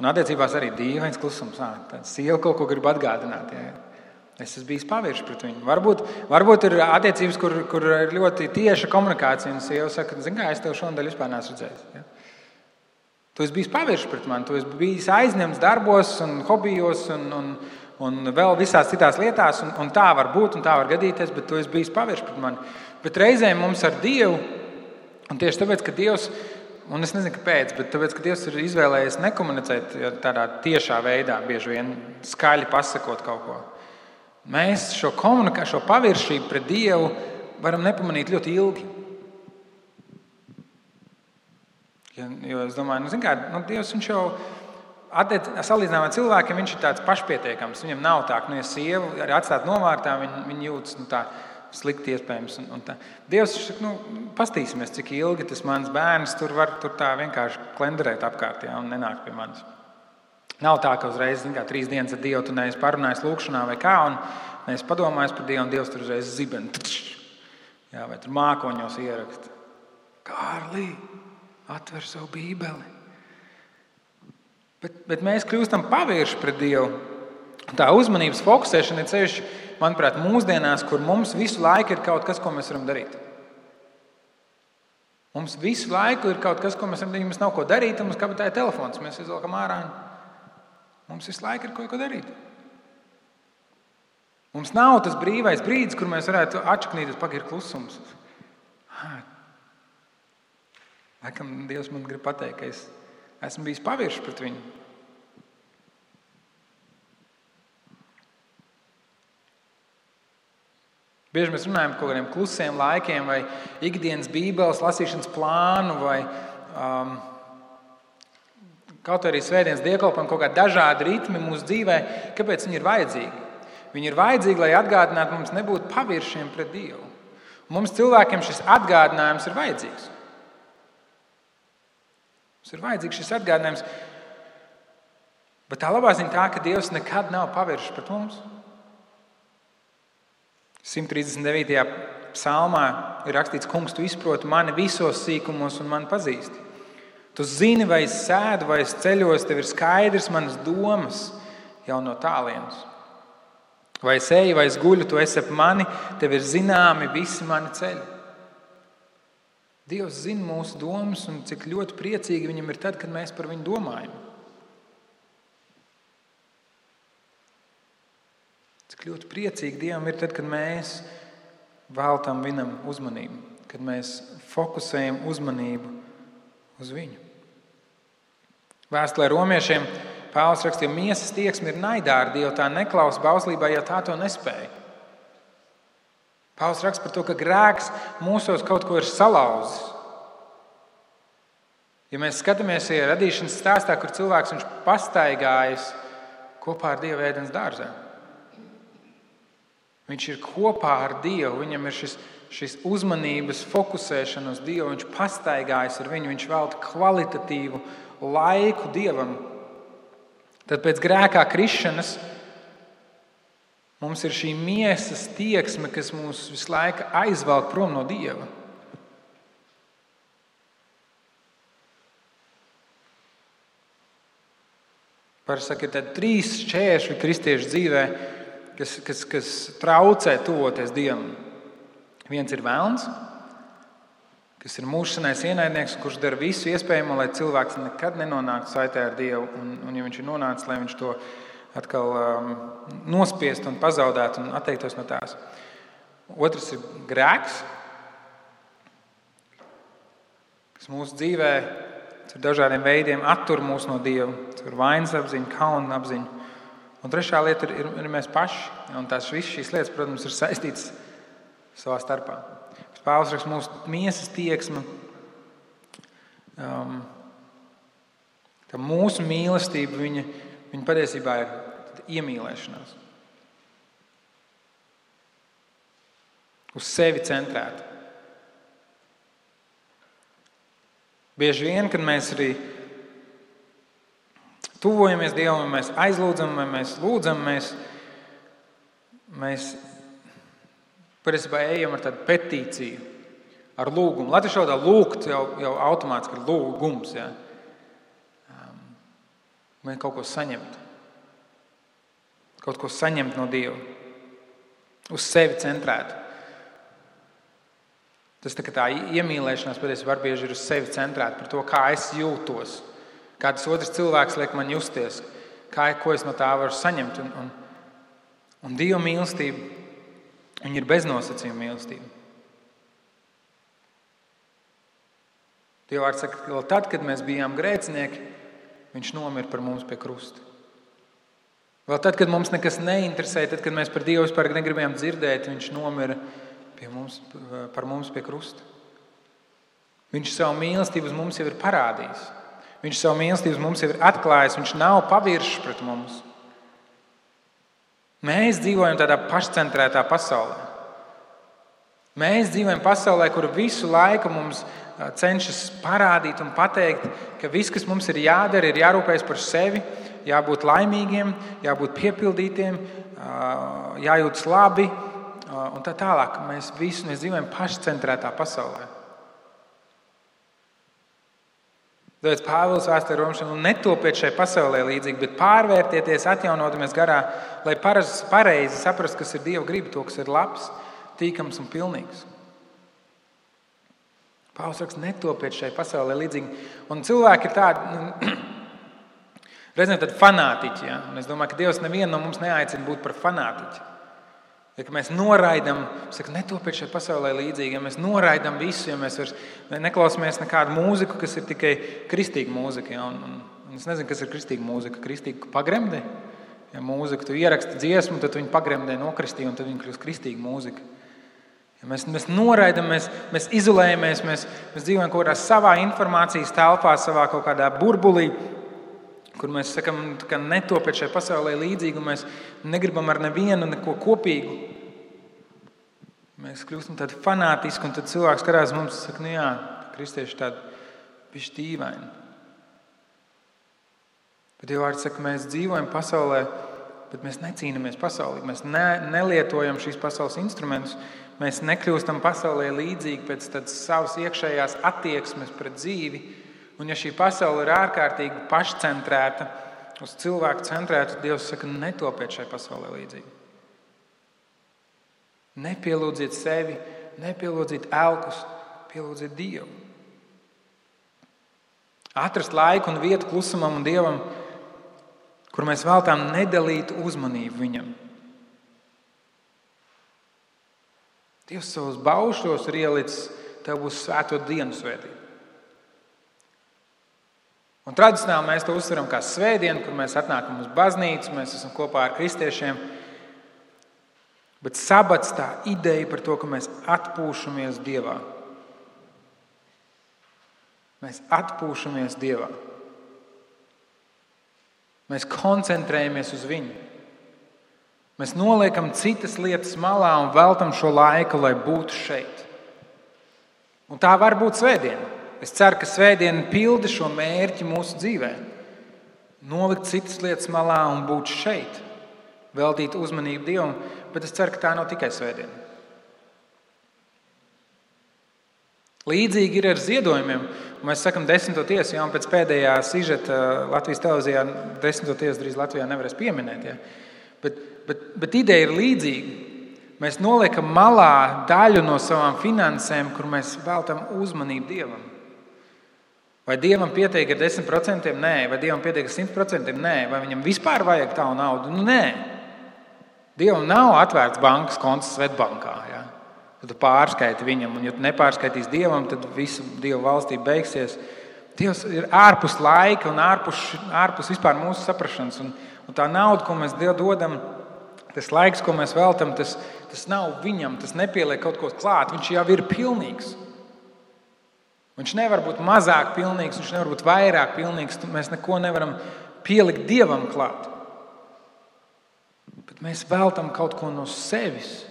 Un attiecībās arī dīvains klusums. Tāda sieva kaut ko grib atgādināt. Jā. Es esmu bijis pavirši pret viņu. Varbūt ir attiecības, kur ir ļoti tieša komunikācija, un sieva saka, zini kā, es tev šonadēļ vispār neesmu redzējis. Ja? Tu esi bijis pavirši pret mani, tu esi bijis aizņemts darbos un hobijos un vēl visās citās lietās, un tā var būt, un tā var gadīties, bet tu esi bijis pavirši pret mani. Bet reizēm mums ar Dievu, un tieši tāpēc, ka Dievs Un es nezinu, kāpēc, bet tāpēc, ka Dievs ir izvēlējies nekomunicēt tādā tiešā veidā, bieži vien skaļi pasakot kaut ko. Mēs šo paviršību pret Dievu varam nepamanīt ļoti ilgi. Jo es domāju, Dievs viņš jau salīdzinājumā cilvēkiem viņš ir tāds pašpietiekams. Viņam nav tā, ka ja sieva arī atstāt novārtā, viņa jūtas tā slikti iespējams. Dievs saka, pastīsimies, cik ilgi tas mans bērns tur var tā vienkārši klenderēt apkārt, un nenāk pie manis. Nav tā, ka uzreiz 3 dienas ar Dievu tu neesi parunājis lūkšanā vai kā, un neesi padomājis par Dievu, un Dievs tur uzreiz ziben. Vai tur mākoņos ieraksta. Kārlī, atver savu bībeli. Bet mēs kļūstam pavirši pret Dievu. Tā uzmanības fokusēšana ir ceļš, manuprāt, mūsdienās, kur mums visu laiku ir kaut kas, ko mēs varam darīt. Mums visu laiku ir kaut kas, ko mēs varam darīt. Mums nav ko darīt, un mums kabatā ir telefons. Mēs izvelkam ārā. Mums visu laiku ir ko darīt. Mums nav tas brīvais brīdis, kur mēs varētu atšaknīties, ir klusums. Laikam Dievs man grib pateikt, ka es esmu bijis pavirši pret viņu. Bieži mēs runājam par kaut kādiem klusiem laikiem vai ikdienas bībeles lasīšanas plānu vai kaut arī svētdienas dievkalpojumu, kaut kādi dažādi ritmi mūsu dzīvē. Kāpēc viņi ir vajadzīgi? Viņi ir vajadzīgi, lai atgādinātu mums nebūt paviršiem pret Dievu. Mums cilvēkiem šis atgādinājums ir vajadzīgs. Mums ir vajadzīgs šis atgādinājums. Bet tā labā ziņa tā, ka Dievs nekad nav paviršs pret mums. 139. psalmā ir rakstīts, kungs, tu izproti mani visos sīkumos un mani pazīsti. Tu zini, vai es sēdu, vai es ceļos, tev ir skaidrs manas domas jau no tālienes. Vai es eju, vai es guļu, tu esi ap mani, tev ir zināmi visi mani ceļi. Dievs zina mūsu domas un cik ļoti priecīgi viņam ir tad, kad mēs par viņu domājam. Cik ļoti priecīgi Dievam ir tad, kad mēs veltam viņam uzmanību, kad mēs fokusējam uzmanību uz viņu. Vēstulē romiešiem Pāvils rakstīja, miesas tieksme ir naidā ar Dievu, tā neklausa bauslībā, ja tā to nespēja. Pāvils raksta par to, ka grēks mūsos kaut ko ir salauzis. Ja mēs skatāmies radīšanas stāstā, kur cilvēks viņš pastaigājas kopā ar Dievu ēdienas dārzā. Viņš ir kopā ar Dievu, viņam ir šis uzmanības fokusēšana uz Dievu, viņš pastaigājas ar viņu, viņš velta kvalitatīvu laiku Dievam. Tad pēc grēkā krišanas mums ir šī miesas tieksme, kas mūs visu laiku aizvelk prom no Dieva. Parasti saka, ir tādi 3 šķēršļi kristiešu dzīvē, kas traucē tuvoties Dievam. Viens ir velns, kas ir mūžsanais ienaidnieks, kurš dara visu iespējamo, lai cilvēks nekad nenonāktu saitē ar Dievu. Un ja viņš ir nonācis, lai viņš to atkal nospiest un pazaudētu un atteiktos no tās. Otrs ir grēks, kas mūsu dzīvē ar dažādiem veidiem attur mūs no Dieva. Tas ir vainas apziņa, kauna apziņa. Un trešā lieta ir mēs paši. Un tās visas šīs lietas, protams, ir saistītas savā starpā. Pāvils raksta, mūsu miesas tieksme, ka mūsu mīlestība, viņa patiesībā ir iemīlēšanās. Uz sevi centrēta. Bieži vien, kad mēs arī tuvojamies Dievam, vai mēs aizlūdzam, vai mēs lūdzam, mēs patiesībā ejam ar tādu petīciju, ar lūgumu. Latviešu valodā lūgt jau automātiski ir lūgums. Ja? Mēs kaut ko saņemt. Kaut ko saņemt no Dieva. Uz sevi centrēt. Tas tā iemīlēšanās patiesībā bieži ir uz sevi centrēta par to, kā es jūtos. Kā tas otrs cilvēks liek man justies. Ko es no tā varu saņemt. Un Dieva mīlestība, viņa ir beznosacījuma mīlestība. Dieva vārds saka, ka tad, kad mēs bijām grēcinieki, viņš nomira par mums pie krusta. Vēl tad, kad mums nekas neinteresēja, tad, kad mēs par Dievu vispār negribējām dzirdēt, viņš nomira par mums pie krusta. Viņš savu mīlestību uz mums jau ir parādījis. Viņš savu mīlestību uz mums jau ir atklājis. Viņš nav paviršs pret mums. Mēs dzīvojam tādā pašcentrētā pasaulē. Mēs dzīvojam pasaulē, kur visu laiku mums cenšas parādīt un pateikt, ka viss, kas mums ir jādara, ir jārūpējas par sevi, jābūt laimīgiem, jābūt piepildītiem, jājūtas labi un tā tālāk. Mēs dzīvojam pašcentrētā pasaulē. Tāpēc Pāvils vēstulē Romiešiem netopiet šai pasaulē līdzīgi, bet pārvērtieties, atjaunotamies garā, lai pareizi saprastu, kas ir Dieva griba, to, kas ir labs, tīkams un pilnīgs. Pāvils raksta, netopiet šai pasaulē līdzīgi. Un cilvēki ir tādi, reizēm tādi fanātiķi. Ja? Un es domāju, ka Dievs nevienu no mums neaicina būt par fanātiķi. Ja mēs noraidam, saka, netopiet šai pasaulē līdzīgi, ja mēs noraidam visu, ja mēs vairs neklausāmies nekādu mūziku, kas ir tikai kristīga mūzika. Ja? Un es nezinu, kas ir kristīga mūzika. Kristīga pagremdē. Ja mūzika, tu ieraksti dziesmu, tad viņi pagremdē nokristīja, un tad viņi kļūst kristīga mūzika. Ja mēs noraidam, mēs izolējamies, mēs dzīvojam kaut kādā savā informācijas telpā, savā kaut kādā burbulī, kur mēs sakam, ka netopiet šai pasaulē līdzīgi, un mēs negribam ar nevienu neko kopīgu. Mēs kļūstam tādi fanātiski, un tad cilvēks skatās mums un saka, nu jā, kristieši tādi bišķi dīvaini. Bet Dieva vārds saka, mēs dzīvojam pasaulē, bet mēs necīnamies pasaulē. Mēs nelietojam šīs pasaules instrumentus. Mēs nekļūstam pasaulē līdzīgi pēc tādas savas iekšējās attieksmes pret dzīvi. Un ja šī pasaule ir ārkārtīgi pašcentrēta, uz cilvēku centrēta, Dievs saka, netopiet šai pasaulē līdzīgi. Nepielūdziet sevi, nepielūdziet elkus, pielūdziet Dievu. Atrast laiku un vietu klusumam un Dievam, kur mēs veltām nedalītu uzmanību viņam. Dievs savus baušļos ir ielicis, tev būs svēto dienu svētība. Un tradicionāli mēs to uztveram kā svētdienu, kur mēs atnākam uz baznīcu, mēs esam kopā ar kristiešiem. Bet sabats tā ideja par to, ka mēs atpūšamies Dievā. Mēs atpūšamies Dievā. Mēs koncentrējamies uz viņu. Mēs noliekam citas lietas malā un veltam šo laiku, lai būtu šeit. Un tā var būt svētdiena. Es ceru, ka svētdiena pilda šo mērķi mūsu dzīvē. Nolikt citas lietas malā un būt šeit. Veltīt uzmanību Dievam, bet es ceru, ka tā nav tikai svētdiena. Līdzīgi ir ar ziedojumiem. Mēs sakam 10. tiesu, jau pēc pēdējā sižeta Latvijas televīzijā 10. tiesu drīz Latvijā nevarēs pieminēt. Ja? Bet ideja ir līdzīga. Mēs noliekam malā daļu no savām finansēm, kur mēs veltam uzmanību Dievam. Vai Dievam pietiek ar 10%? Nē. Vai Dievam pietiek ar 100%? Nē. Vai viņam vispār vajag tādu naudu? Nē. Dievam nav atvērts bankas konts Svetbankā. Ja? Tad tu pārskaiti viņam, un ja tu nepārskaitīs Dievam, tad visa Dieva valstība beigsies. Dievs ir ārpus laika un ārpus vispār mūsu saprašanas. Un tā nauda, ko mēs dodam, tas laiks, ko mēs veltam, tas nav viņam, tas nepieliek kaut ko klāt. Viņš jau ir pilnīgs. Viņš nevar būt mazāk pilnīgs, viņš nevar būt vairāk pilnīgs. Mēs neko nevaram pielikt Dievam klāt. Bet mēs veltam kaut ko no sevis.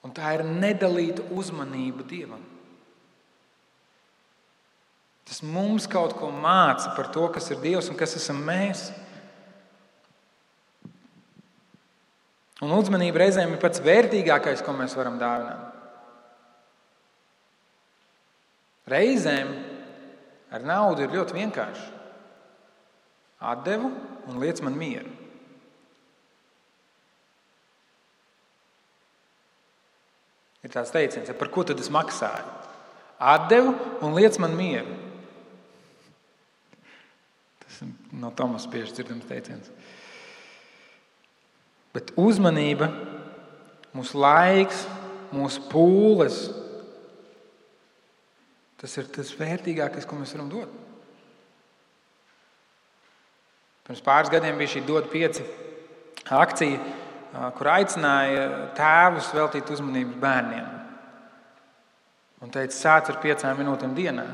Un tā ir nedalīta uzmanība Dievam. Tas mums kaut ko māca par to, kas ir Dievs un kas esam mēs. Un uzmanība reizēm ir pats vērtīgākais, ko mēs varam dāvināt. Reizēm ar naudu ir ļoti vienkārši. Atdevu un liec man mieru. Ir tāds teiciens, par ko tad es maksāju? Atdevu un liec man mieru. Tas no Tomas bieži dzirdams teiciens. Bet uzmanība, mūsu laiks, mūsu pūles Tas ir tas vērtīgākais, ko mēs varam dot. Pirms pāris gadiem bija šī Dod 5 akcija, kur aicināja tēvus veltīt uzmanību bērniem. Un teica, sāc ar 5 minūtēm dienā.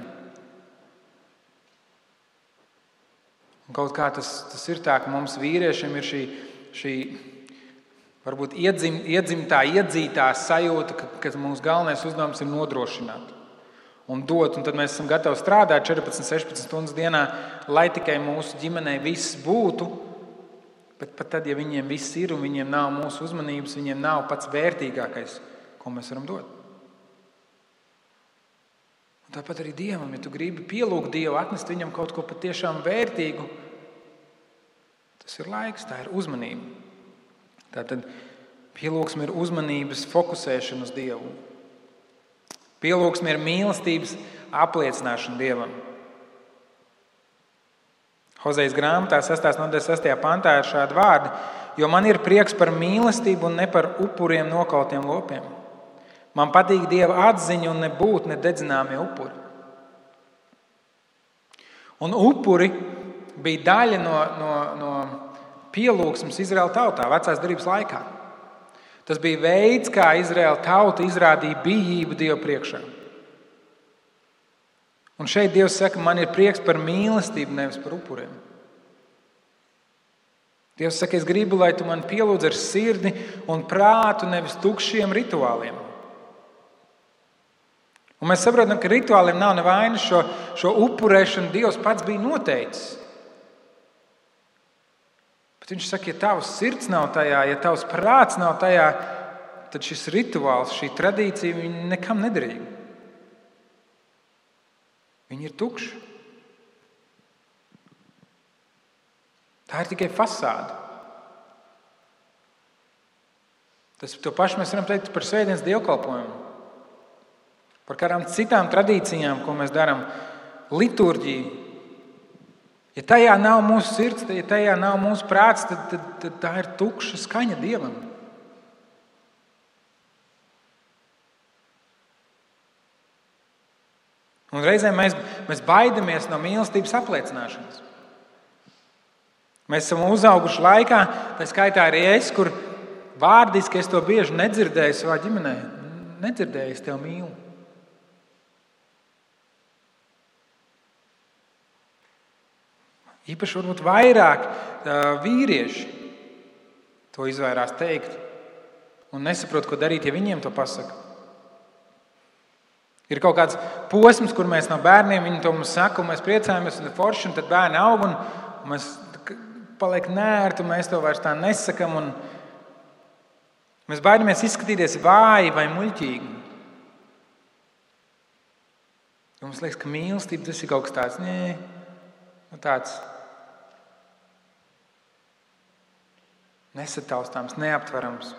Un kaut kā tas ir tā, ka mums vīriešiem ir šī varbūt iedzītā sajūta, ka mūsu galvenais uzdevums ir nodrošināt un dot. Un tad mēs esam gatavi strādāt 14-16 stundas dienā, lai tikai mūsu ģimenei viss būtu. Bet pat tad, ja viņiem viss ir un viņiem nav mūsu uzmanības, viņiem nav pats vērtīgākais, ko mēs varam dot. Un tāpat arī Dievam, ja tu gribi pielūgt Dievu, atnest viņam kaut ko patiešām vērtīgu, tas ir laiks, tā ir uzmanība. Tātad pielūgsme ir uzmanības fokusēšana uz Dievu. Pielūgsme ir mīlestības apliecināšana Dievam. Hozejas grāmatā 6. nodaļas 6. pantā ir šādi vārdi: jo man ir prieks par mīlestību un ne par upuriem nokautiem lopiem. Man patīk Dieva atziņa un nebūt nededzināmie upuri. Un upuri bija daļa no pielūgsmes Izraēla tautā vecās derības laikā. Tas bija veids, kā Izraēla tauta izrādīja bijību Dievu priekšā. Un šeit Dievs saka, man ir prieks par mīlestību, nevis par upuriem. Dievs saka, es gribu, lai tu man pielūdz ar sirdi un prātu, nevis tukšiem rituāliem. Un mēs saprotam, ka rituāliem nav nevainas, šo upurēšanu Dievs pats bija noteicis. Bet viņš saka, ja tavs sirds nav tajā, ja tavs prāts nav tajā, tad šis rituāls, šī tradīcija, viņi nekam nederīga. Viņi ir tukši. Tā ir tikai fasāde. To pašu mēs varam teikt par svētdienas dievkalpojumu. Par kādām citām tradīcijām, ko mēs darām, liturģiju. Ja tajā nav mūsu sirds, ja tajā nav mūsu prāts, tad tā ir tukša skaņa Dievam. Un reizēm mēs baidamies no mīlestības apliecināšanas. Mēs esam uzauguši laikā, tā skaitā arī es, kur vārdiski es to bieži nedzirdēju savā ģimenē. Nedzirdēju, es tevi mīlu. Īpaši varbūt vairāk vīrieši to izvairās teikt un nesaprot, ko darīt, ja viņiem to pasaka. Ir kaut kāds posms, kur mēs no bērniem viņi to mums saka, un mēs priecājamies, un forši, un tad bērni aug, un mēs paliek nērti, un mēs to vairs tā nesakam, un mēs baidamies izskatīties vāji vai muļķīgi. Un mums liekas, ka mīlestība tas ir kaut kas tāds, tāds nesataustāms, neaptverams.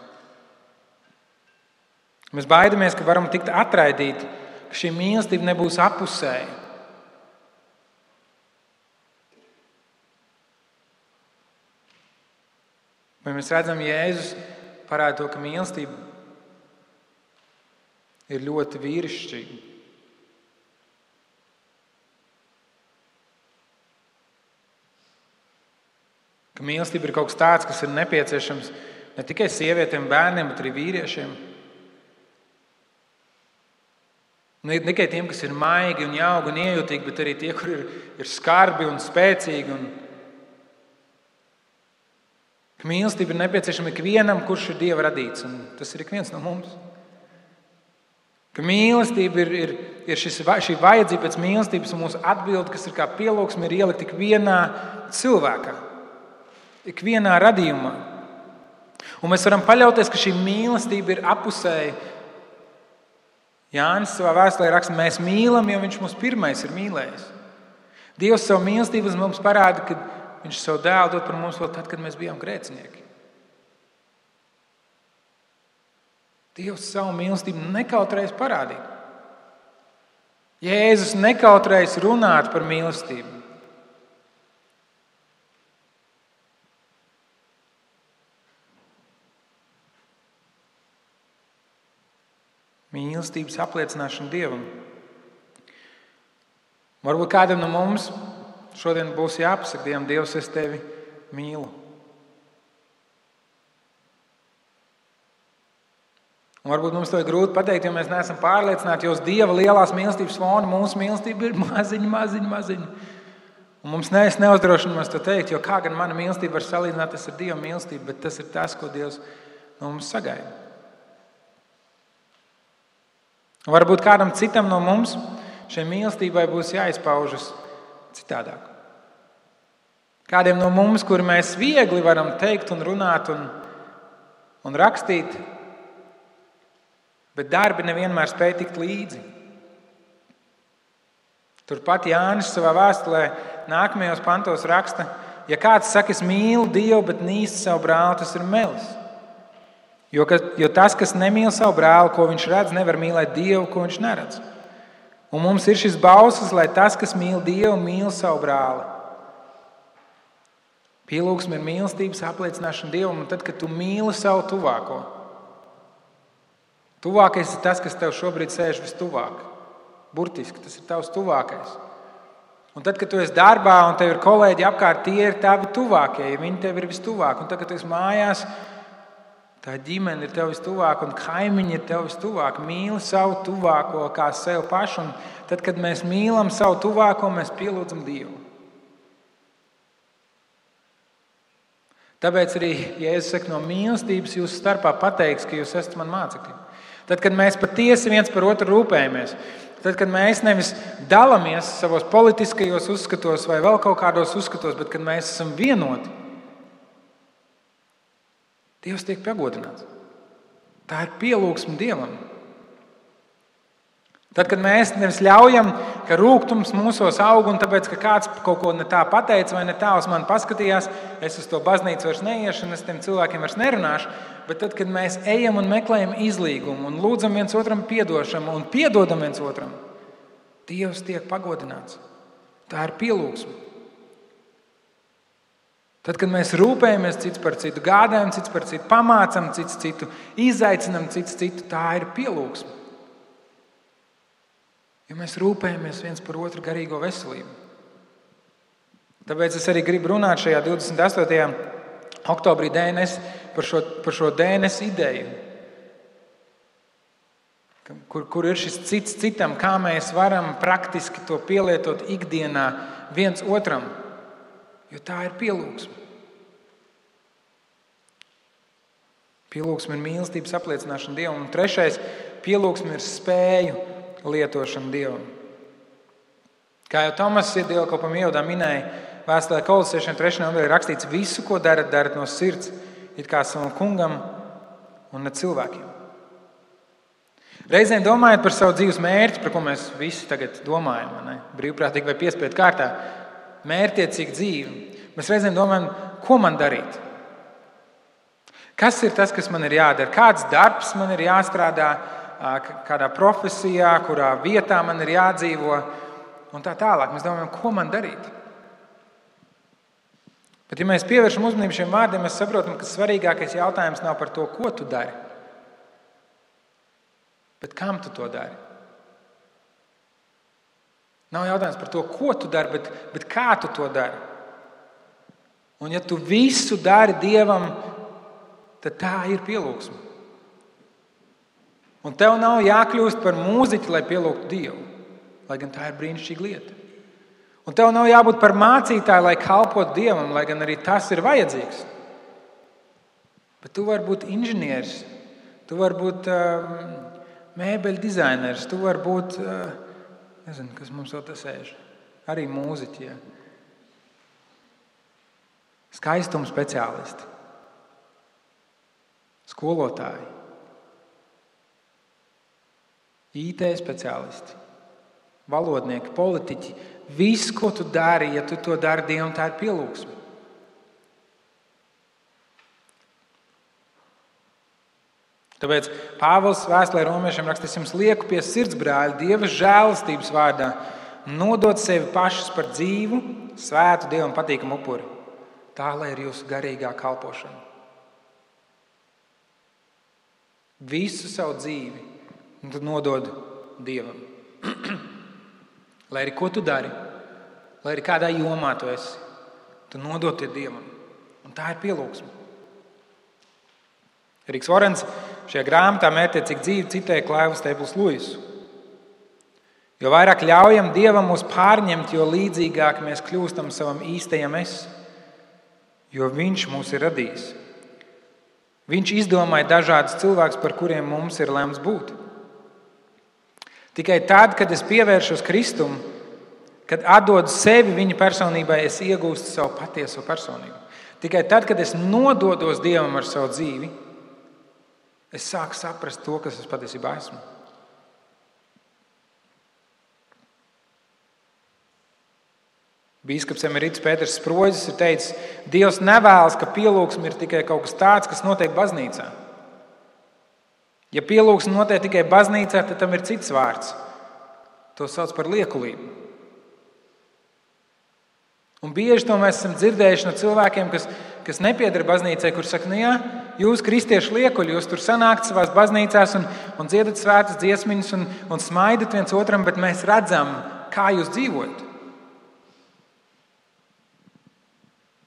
Mēs baidamies, ka varam tikt atraidīti, ka šī mīlestība nebūs apusēja. Vai mēs redzam, Jēzus parāda to, ka mīlestība ir ļoti vīrišķīga. Ka mīlestība ir kaut kas tāds, kas ir nepieciešams ne tikai sievietēm, bērniem, bet arī vīriešiem. Ne tikai tiem, kas ir maigi un jauki un iejūtīgi, bet arī tie, kur ir skarbi un spēcīgi. Ka mīlestība ir nepieciešama ikvienam, kurš ir Dieva radīts, un tas ir ik viens no mums. Ka mīlestība ir šī vajadzība pēc mīlestības, un mūsu atbilde, kas ir kā pielūgsme, ir ielikt ikvienā cilvēkā. Ikvienā radījumā. Un mēs varam paļauties, ka šī mīlestība ir apusēja. Jānis savā vēstulē raksta, mēs mīlam, jo viņš mūs pirmais ir mīlējis. Dievs savu mīlestību mums parāda, ka viņš savu dēlu dod par mums vēl tad, kad mēs bijām grēcinieki. Dievs savu mīlestību nekautrējas parādīt. Jēzus nekautrējas runāt par mīlestību. Mīlestības apliecināšana Dievam Varbūt kādam no mums šodien būs jāpasaka Dievam, Dievs, es tevi mīlu. Un varbūt mums to ir grūti pateikt, jo mēs neesam pārliecināti, jo uz Dieva lielās mīlestības fona mūsu mīlestība ir maziņa. Un mums neuzdrošinamies to teikt, jo kā gan mana mīlestība var salīdzināties ar Dieva mīlestību, bet tas ir tas, ko Dievs no mums sagaida. Un varbūt kādam citam no mums šai mīlestībai būs jāizpaužas citādāk. Kādiem no mums, kuri mēs viegli varam teikt un runāt un rakstīt, bet darbi nevienmēr spēj tikt līdzi. Turpat Jānis savā vēstulē nākamajos pantos raksta, ja kāds saka, es mīlu Dievu, bet nīstu savu brāli, tas ir melis. Jo tas, kas nemīl savu brāli, ko viņš redz, nevar mīlēt Dievu, ko viņš neredz. Un mums ir šis bauslis, lai tas, kas mīl Dievu, mīl savu brāli. Pielūgsme ir mīlestības apliecināšana Dievam, un tad, kad tu mīli savu tuvāko, tuvākais ir tas, kas tev šobrīd sēž vistuvāk. Burtiski, tas ir tavs tuvākais. Un tad, kad tu esi darbā un tev ir kolēģi apkārt, tie ir tavi tuvākie, ja viņi tev ir vistuvāk. Un tad, kad tu esi mājās, tā ģimene ir tev vistuvāk un kaimiņi ir tev vistuvāk. Mīli savu tuvāko kā sev pašu. Un tad, kad mēs mīlam savu tuvāko, mēs pielūdzam Dievu. Tāpēc arī, ja es saku no mīlestības, jūs starpā pateiks, ka jūs esat man mācekļi. Tad, kad mēs patiesi viens par otru rūpējamies, tad, kad mēs nevis dalāmies savos politiskajos uzskatos vai vēl kaut kādos uzskatos, bet kad mēs esam vienoti, Dievs tiek pagodināts. Tā ir pielūgsme Dievam. Tad, kad mēs nevis ļaujam, ka rūgtums mūsos aug un tāpēc, ka kāds kaut ko ne tā pateica vai ne tā uz mani paskatījās, es uz to baznīcu vairs neiešu un es tiem cilvēkiem vairs nerunāšu, bet tad, kad mēs ejam un meklējam izlīgumu un lūdzam viens otram piedošanu un piedodam viens otram, Dievs tiek pagodināts. Tā ir pielūgsme. Tad, kad mēs rūpējamies cits par citu, gādājam cits par citu, pamācam cits citu, izaicinam cits citu, tā ir pielūgsme. Jo mēs rūpējamies viens par otru garīgo veselību. Tāpēc es arī gribu runāt šajā 28. oktobrī DNS par šo DNS ideju. Kur ir šis cits citam, kā mēs varam praktiski to pielietot ikdienā viens otram. Jo tā ir pielūgsme. Pielūgsme ir mīlestības apliecināšana Dievam. Un trešais, pielūgsme ir spēju lietošana Dievam. Kā jau Tomas dievkalpam ievadā minēja, vēstulē Kolosiešiem 3. nodaļā rakstīts, visu, ko darat, darat no sirds, it kā savam kungam un ne cilvēkiem. Reizēm domājot par savu dzīves mērķi, par ko mēs visi tagad domājam, ne? Brīvprātīgi vai piespiedu kārtā, mērķiecīga dzīve. Mēs reizēm domājam, ko man darīt? Kas ir tas, kas man ir jādara? Kāds darbs man ir jāstrādā? Kādā profesijā, kurā vietā man ir jādzīvo un tā tālāk. Mēs domājam, ko man darīt. Bet, ja mēs pievēršam uzmanību šiem vārdiem, mēs saprotam, ka svarīgākais jautājums nav par to, ko tu dari, bet kam tu to dari. Nav jautājums par to, ko tu dari, bet kā tu to dari. Un ja tu visu dari Dievam, tad tā ir pielūgsme. Un tev nav jākļūst par mūziķi, lai pielūgtu Dievu, lai gan tā ir brīnišķīga lieta. Un tev nav jābūt par mācītāju, lai kalpotu Dievam, lai gan arī tas ir vajadzīgs. Bet tu vari būt inženieris, tu vari būt mēbeļu dizainers, tu vari būt, nezinu, kas mums vēl tas sēž, arī mūziķi. Ja. Skaistuma speciālisti, skolotāji, IT speciālisti, valodnieki, politiķi. Viss, ko tu dari, ja tu to dari Dievam, tā ir pielūgsme. Tāpēc Pāvils vēstulē romiešiem raksta, es jums lieku pie sirds, brāļi, Dieva žēlastības vārdā, nodot sevi pašus par dzīvu, svētu Dievam patīkamu upuri. Tā, lai ir jūsu garīgā kalpošana. Visu savu dzīvi un tad nodod Dievam. Lai arī ko tu dari, lai arī kādā jomā tu esi, tu nodod tie Dievam. Un tā ir pielūgsme. Eriks Vorens šajā grāmatā Mērķtiecīgi dzīve citēja Klaivas Stēples Luisu. Jo vairāk ļaujam Dievam mūs pārņemt, jo līdzīgāk mēs kļūstam savam īstajam es, jo Viņš mūs ir radījis. Viņš izdomāja dažādus cilvēkus, par kuriem mums ir lemts būt. Tikai tad, kad es pievēršos Kristum, kad atdodu sevi viņa personībai, es iegūstu savu patieso personību. Tikai tad, kad es nododos Dievam ar savu dzīvi, es sāku saprast to, kas es patiesībā esmu. Bīskaps emerits Pēters Sproģis ir teicis, Dievs nevēlas, ka pielūgsme ir tikai kaut kas tāds, kas notiek baznīcā. Ja pielūgsme notiek tikai baznīcā, tad tam ir cits vārds. To sauc par liekulību. Un bieži to mēs esam dzirdējuši no cilvēkiem, kas nepieder baznīcai, kur saka, nu jā, jūs kristieši liekuļi, jūs tur sanākt savās baznīcās un dziedat svētas dziesmiņas un smaidat viens otram, bet mēs redzam, kā jūs dzīvojat.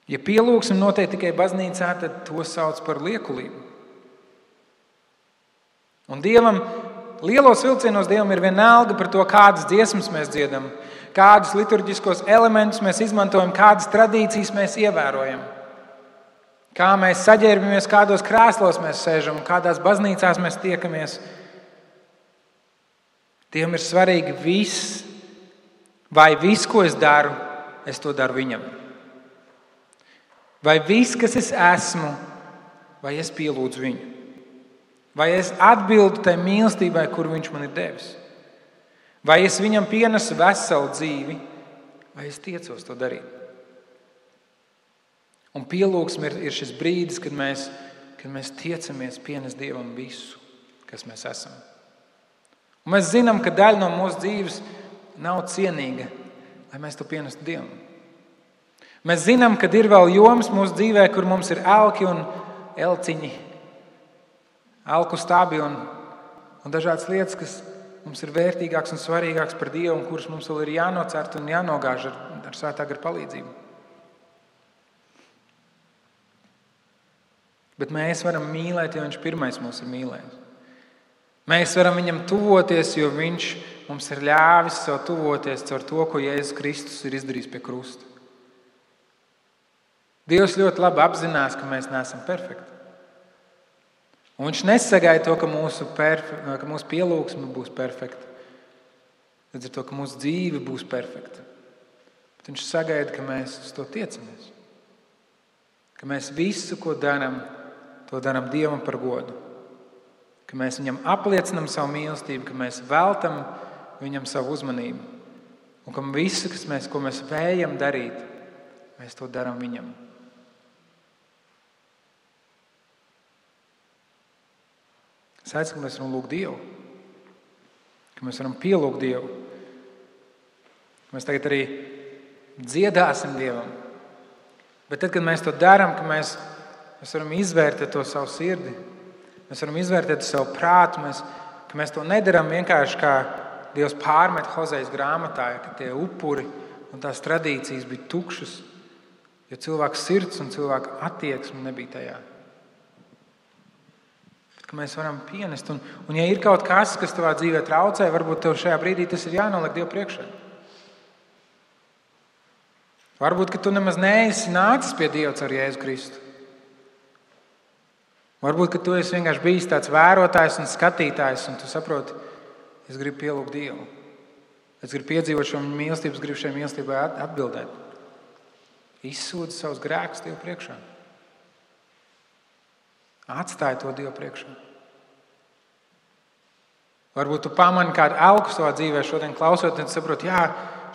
Ja pielūgsme notiek tikai baznīcā, tad to sauc par liekulību. Un Dievam, lielos vilcienos Dievam ir vienalga par to, kādas dziesmas mēs dziedam, kādus liturģiskos elementus mēs izmantojam, kādas tradīcijas mēs ievērojam, kā mēs saģērbamies, kādos krēslos mēs sēžam un kādās baznīcās mēs tiekamies. Dievam ir svarīgi viss, vai viss, ko es daru, es to daru viņam. Vai viss, kas es esmu, vai es pielūdzu viņu? Vai es atbildu tai mīlestībai, kuru viņš man ir devis? Vai es viņam pienesu veselu dzīvi, vai es tiecos to darīt? Un pielūgsme ir šis brīdis, kad mēs tiecamies pienest Dievam visu, kas mēs esam. Un mēs zinām, ka daļa no mūsu dzīves nav cienīga, lai mēs to pienestu Dievam. Mēs zinām, ka ir vēl jomas mūsu dzīvē, kur mums ir elki un elciņi, elku stabi un dažādas lietas, kas mums ir vērtīgāks un svarīgāks par Dievu un kuras mums vēl ir jānocert un jānogāž ar svētā gara palīdzību. Bet mēs varam mīlēt, jo Viņš pirmais mūs ir mīlējis. Mēs varam Viņam tuvoties, jo Viņš mums ir ļāvis sev tuvoties caur to, ko Jēzus Kristus ir izdarījis pie krusta. Dievs ļoti labi apzinās, ka mēs neesam perfekti. Un Viņš nesagaida to, ka mūsu pielūgsme būs perfekta. Līdz ar to, ka mūsu dzīve būs perfekta. Bet Viņš sagaida, ka mēs uz to tiecamies. Ka mēs visu, ko darām, to darām Dievam par godu. Ka mēs Viņam apliecinam savu mīlestību, ka mēs veltam Viņam savu uzmanību. Un ka visu, ko mēs vējam darīt, mēs to darām Viņam. Es aicinu, ka mēs varam lūgt Dievu, ka mēs varam pielūgt Dievu. Mēs tagad arī dziedāsim Dievam. Bet tad, kad mēs to darām, ka mēs varam izvērtēt to savu sirdi, mēs varam izvērtēt savu prātu, ka mēs to nedarām vienkārši kā Dievs pārmet Hozejas grāmatā, ka tie upuri un tās tradīcijas bija tukšas, jo cilvēka sirds un cilvēka attieksme nebija tajā. Ka mēs varam pienest. Un ja ir kaut kas tavā dzīvē traucē, varbūt tev šajā brīdī tas ir jānoliek Dievu priekšā. Varbūt, ka tu nemaz neesi nācis pie Dieva caur Jēzu Kristu. Varbūt, ka tu esi vienkārši bijis tāds vērotājs un skatītājs, un tu saproti, es gribu pielūgt Dievu. Es gribu piedzīvot šo mīlestību, es gribu šai mīlestībai atbildēt. Izsūdzi savus grēkus Dievu priekšā. Atstāj to Dievu priekšā. Varbūt tu pamani kādu elku savā dzīvē šodien klausot, un saproti, jā,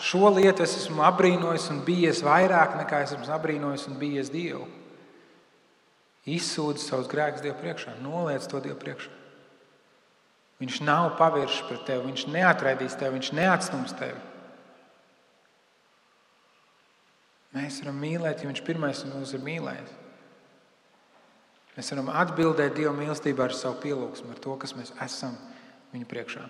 šo lietu es esmu apbrīnojis un bijies vairāk nekā es esmu apbrīnojis un bijies Dievu. Izsūdzi savus grēkus Dievu priekšā, noliec to Dievu priekšā. Viņš nav pavēršs pret tevi, Viņš neatraidīs tevi, Viņš neatstums tevi. Mēs varam mīlēt, jo Viņš pirmais mūs ir mīlējis. Mēs varam atbildēt Dieva mīlestībā ar savu pielūgsmu, ar to, kas mēs esam Viņa priekšā.